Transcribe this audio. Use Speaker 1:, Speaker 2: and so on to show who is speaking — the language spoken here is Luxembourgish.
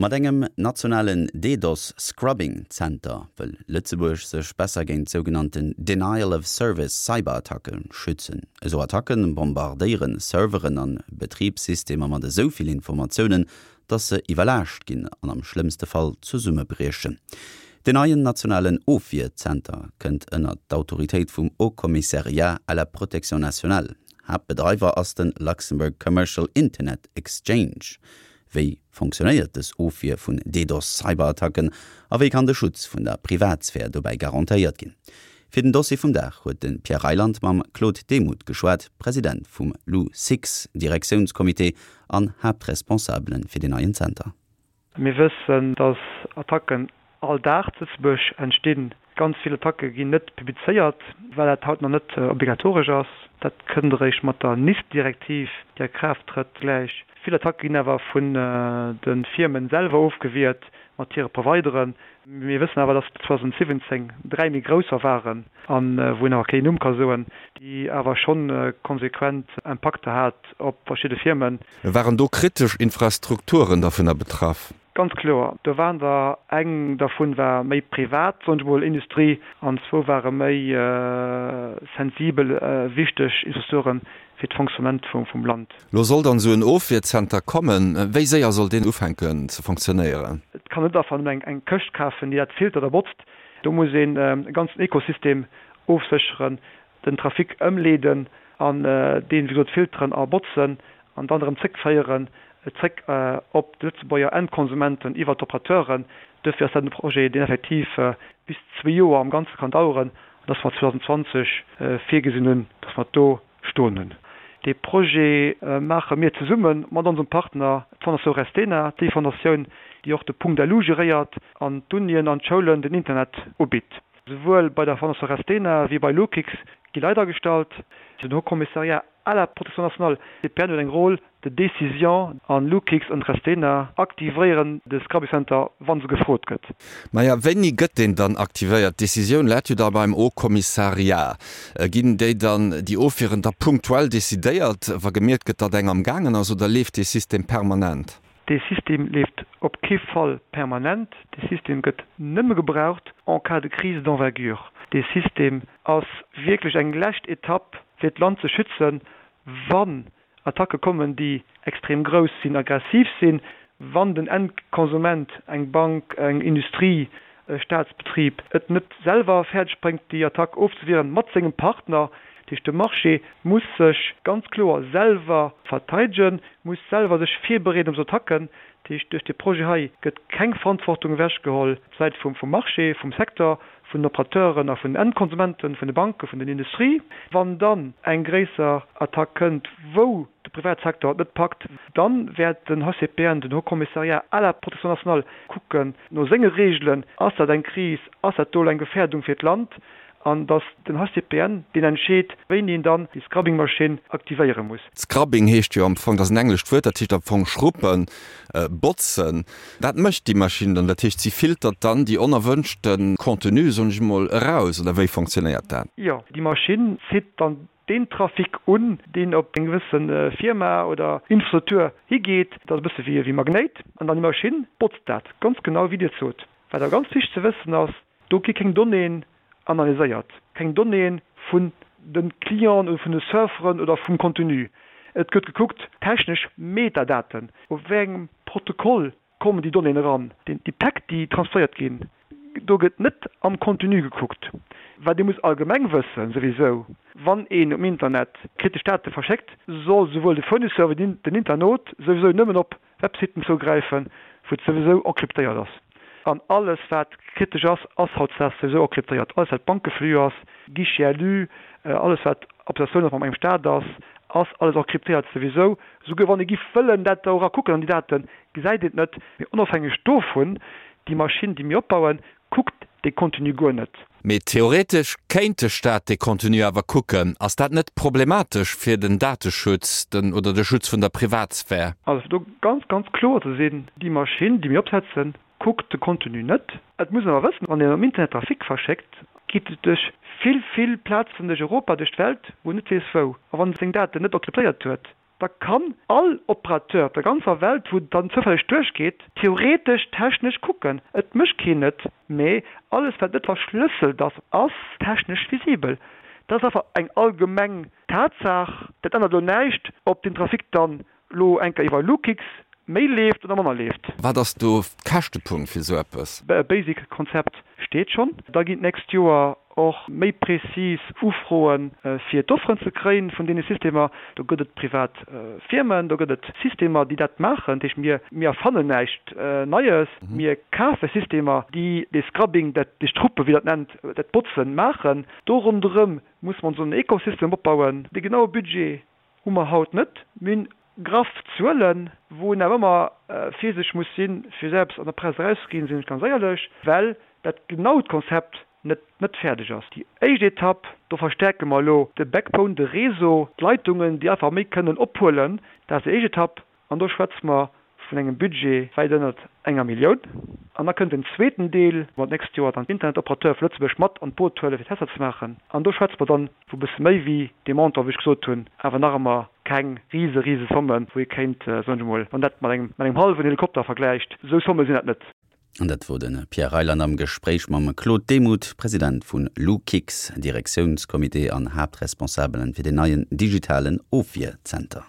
Speaker 1: Mat engem nationalen DDoS-Scrubbing Zenter wëll Lëtzebuerg sech besser géint sougenannten Denial of Service Cyberattacke schützen. Esou Attacke bombardéiere Serveren an Betribssystemer mat esou vill Informatiounen, datt se iwwerlaascht ginn an am schlëmmste Fall zesummebriechen. Den neien nationalen Ofwierzenter kënnt ënnert d'Autoritéit vum Haut Commissariat à la protection nationale. Haaptbedreiwer ass de Luxembourg Commercial Internet Exchange. Wéi fonctionnéiert dës Ofwier vun DDoS-Cyberattacken a wéi kann de Schutz vun der Privatsphär dobäi garantéiert ginn? Fir den Dossier vum Dag huet de Pierre Reyland mam Claude Demuth geschwat, President vum LUCIX-Direktiounscomité an Haaptresponsabele fir deen neien Zenter.
Speaker 2: Mir wëssen, dass Attacken all Dag zu Lëtzebuerg entstinn. Ganz vill Attacke ginn net publizéiert, well dat haut nach net obligatoresch ass. Dat kënnt eréischt mat der NIS-Direktiv, déi a Kraaft trëtt, gläich. Vill Attacke ginn awer vun de Firmen selwer ofgewiert mat hire Provideren. Mir wëssen awer, dass 2017 dräi méi grousser waren, a wou een awer keen Numm ka soen, déi awer schonn konsequent Impakter hat op verschidde Firmen.
Speaker 3: Waren do kritesch Infrastrukturen dovunner betraff?
Speaker 2: Ganz kloer. Do waren der, eng dervun war méi privat, soen ech mol, Industrie, an zwou ware méi sensibel, wichteg Infrastrukture fir d'Fonctionnement vum Land.
Speaker 3: Lo soll dann esou en Ofwierzenter kommen. Wéi séier soll deen ufänken ze fonctionnéieren?
Speaker 2: Et kann net einfach nëmmen eng Këscht kafen, déi dat filtert a botzt. Do muss een e ganzen Ekosystem ofsécheren, den Trafic ëmleeden an deen, wéi gesot, filteren a botzen an dann erëm zréckféieren, zréck op d'Lëtzebuerger Endkonsumenten iwwert d'Operateuren. Duerfir ass dat e Projet, deen effektiv bis zwee Joer am Ganze kann daueren an dass mer 2020 virgesinn hunn, dass mer do stoen hunn. Dee Projet maache mir zesumme mat onsem Partner, d'Fondation Restena, déi Fondatioun, déi och de Punkt LU geréiert an d'Unien an d'Schoulen den Internet ubitt. Souwuel bei der Fondation Restena wéi bei Lokix gi Leit agestallt. Den Haut Commissariat à la protection nationale, CPN, huet eng Rôle de décision an Lokix an Restena aktivéieren de Scrubbing Center, wa se gefrot gëtt.
Speaker 3: Maja, wéini gëtt deen dann aktivéiert? D'Decisioun läit jo da beim Haut Commissariat. Ginn déi dann, déi Ofwieren da punktuell decidéiert, wa gemierkt gëtt, datt eng am gaangen ass, oder leeft dee System permanent?
Speaker 2: Dee System leeft op kee Fall permanent. Dee System gëtt nëmme gebraucht en cas de crise d'envergure. Dee System ass wierklech eng lescht Etapp, fir d'Land ze schützen, wann Attacke kommen, déi extrem grouss sinn, aggressiv sinn, wann den Endkonsument, eng Bank, eng Industrie, e Staatsbetrib, et net selwer fäerdeg bréngt, déi Attack ofzewieren mat sengem Partner. Dat heescht, de Marché muss sech ganz kloer selwer verteidegen, muss selwer sech virbereeden op esou Attacken. Dat heescht, duerch dee Projet hei gëtt keng Verantwortung ewechgeholl op d'Säit vum Marché, vum Secteur, vun den Operateuren a vun den Endkonsumenten, vun de Banken, vun den Industrie. Wann dann eng gréisser Attack kënnt, wou de Privatsecteur et net packt, dann wäert den HCPN, den Haut Commissariat à la protection nationale, kucken no senge Reegelen, ass dat eng Kris, ass dat do elo eng Gefährdung fir d'Land, an datt den HCPN deen entscheet, wéini en dann déi Scrubbing-Maschinn aktivéiere muss.
Speaker 3: Scrubbing heescht jo am Fong, dat ass en englescht Wuert, dat heescht am Fong schruppen, botzen. Wat mécht déi Maschinn dann? Dat heescht, si filtert dann déi onerwënschte Contenue, soen ech emol, eraus, oder wéi fonctionnéiert dat?
Speaker 2: Jo, déi Maschinn zitt dann deen Trafic un, deen op eng gewësse Firma oder Infrastruktur higeet. Dat ass e bësse wéi e Magnéit an dann déi Maschinn botzt dat ganz genau, wéi Dir et sot. Wat awer ganz wichteg ze wëssen ass, Do gi keng Donnéeën analyséiert, keng Donnéeë vun de Clienten oder vun de Surferen oder vum Contenu. Et gëtt gekuckt, technesch Metadaten, op wéi engem Protokoll kommen déi Donnéeën eran, déi Päck, déi transferéiert ginn. Do gëtt net am Contenu gekuckt. Wat ee muss allgemeng wëssen, souwisou, wann een um Internet kritesch Date verschéckt, soll souwuel de Fournisseur wéi den Internaut souwisou nëmmen op Websiten zougräifen, wou et souwisou encryptéiert ass. An alles wat kritesch ass, ass hautdesdaags souwisou encryptéiert. Alles wat Bankeflux ass, Guichet LU, alles wat Applikatioun ass mam engem Staat ass, ass alles encryptéiert souwisou. Souguer wann ee giff wëllen dat do era kucken an déi Daten, gesäit een et net. Mee onofhängeg dovun, déi Maschinn déi mir opbauen, kuckt dee Contenu guer net.
Speaker 3: Mee theoretesch kéint de Staat dee Contenu awer kucken. Ass dat net problematesch fir den Dateschutz, den oder de Schutz vun der Privatsphär?
Speaker 2: Also fir do ganz, ganz kloer ze sinn, déi Maschinn, déi mir opsetzen, kuckt de Contenu net. Et muss een awer wëssen, wann een am Internet Trafic verschéckt, geet et duerch vill, vill Plazen duerch Europa, duerch d'Welt, wou een net weess wou. A wann e seng Daten net encryptéiert huet. Da kann all Operateur op der ganzer Welt, wou dann zoufälleg duerchgeet, theoretesch technesch kucken. Et mécht keen et, mee alles wat net verschlësselt ass, ass technesch visibel. Dat ass einfach eng allgemeng Tatsaach. Dat ännert elo näischt, ob den Trafic dann lo eng Kéier iwwer Lukix méi leeft oder manner leeft.
Speaker 3: Wat ass do Käschtepunkt fir esou eppes?
Speaker 2: E basic Konzept steet schonn. Da ginn d'nächst Joer och méi prezis Ufroen, fir d'Offeren ze kréien vun deene Systemer. Do gëtt et privat Firmen, do gëtt et Systemer, déi dat maachen. Dat heescht, mir, mir erfannen näischt Neies. Mir kafe Systemer, déi dee Scrubbing, dat, déi Struppe, wéi Der et nennt, dat Botzen maachen. Do ronderëm musse mer ons en Ecosystem opbauen. De genaue Budget Hu mer haut net. Mir hunn graff Zuelen, wou een awer ëmmer virsichteg muss sinn, fir esou eppes an der Press erauszeginn, sinn ech ganz éierlech, well dat genaut Konzept net net fäerdeg ass. Déi éischt Etapp, do verstärke mer elo de Backbone, de Réseau, d'Leitungen, déi einfach méi kënnen ophuelen. Dat ass déi éischt Etapp. An do schwätze mer vun engem Budget wäit ënnert enger Millioun. An da kënnt en zweeten Deel, wou mer d'nächst Joer dann d'Internetoperateure vu Lëtzebuerg mat an d'Boot huelen, fir Tester ze maachen. An do schwätze mer dann vu bësse méi wéi dee Montant, wou ech gesot hunn, awer nach ëmmer keng rise, rise Sommen, wou ee kéint, soen ech emol, wann dat mat engem, mat engem hallwen Helikopter vergläicht, esou Somme sinn dat net.
Speaker 1: An dat wor de Pierre Reyland am Gespréich mam Claude Demuth, President vun Lukix, Direktiounscomité an Haaptresponsabelen fir den neien digitalen Ofwierzenter.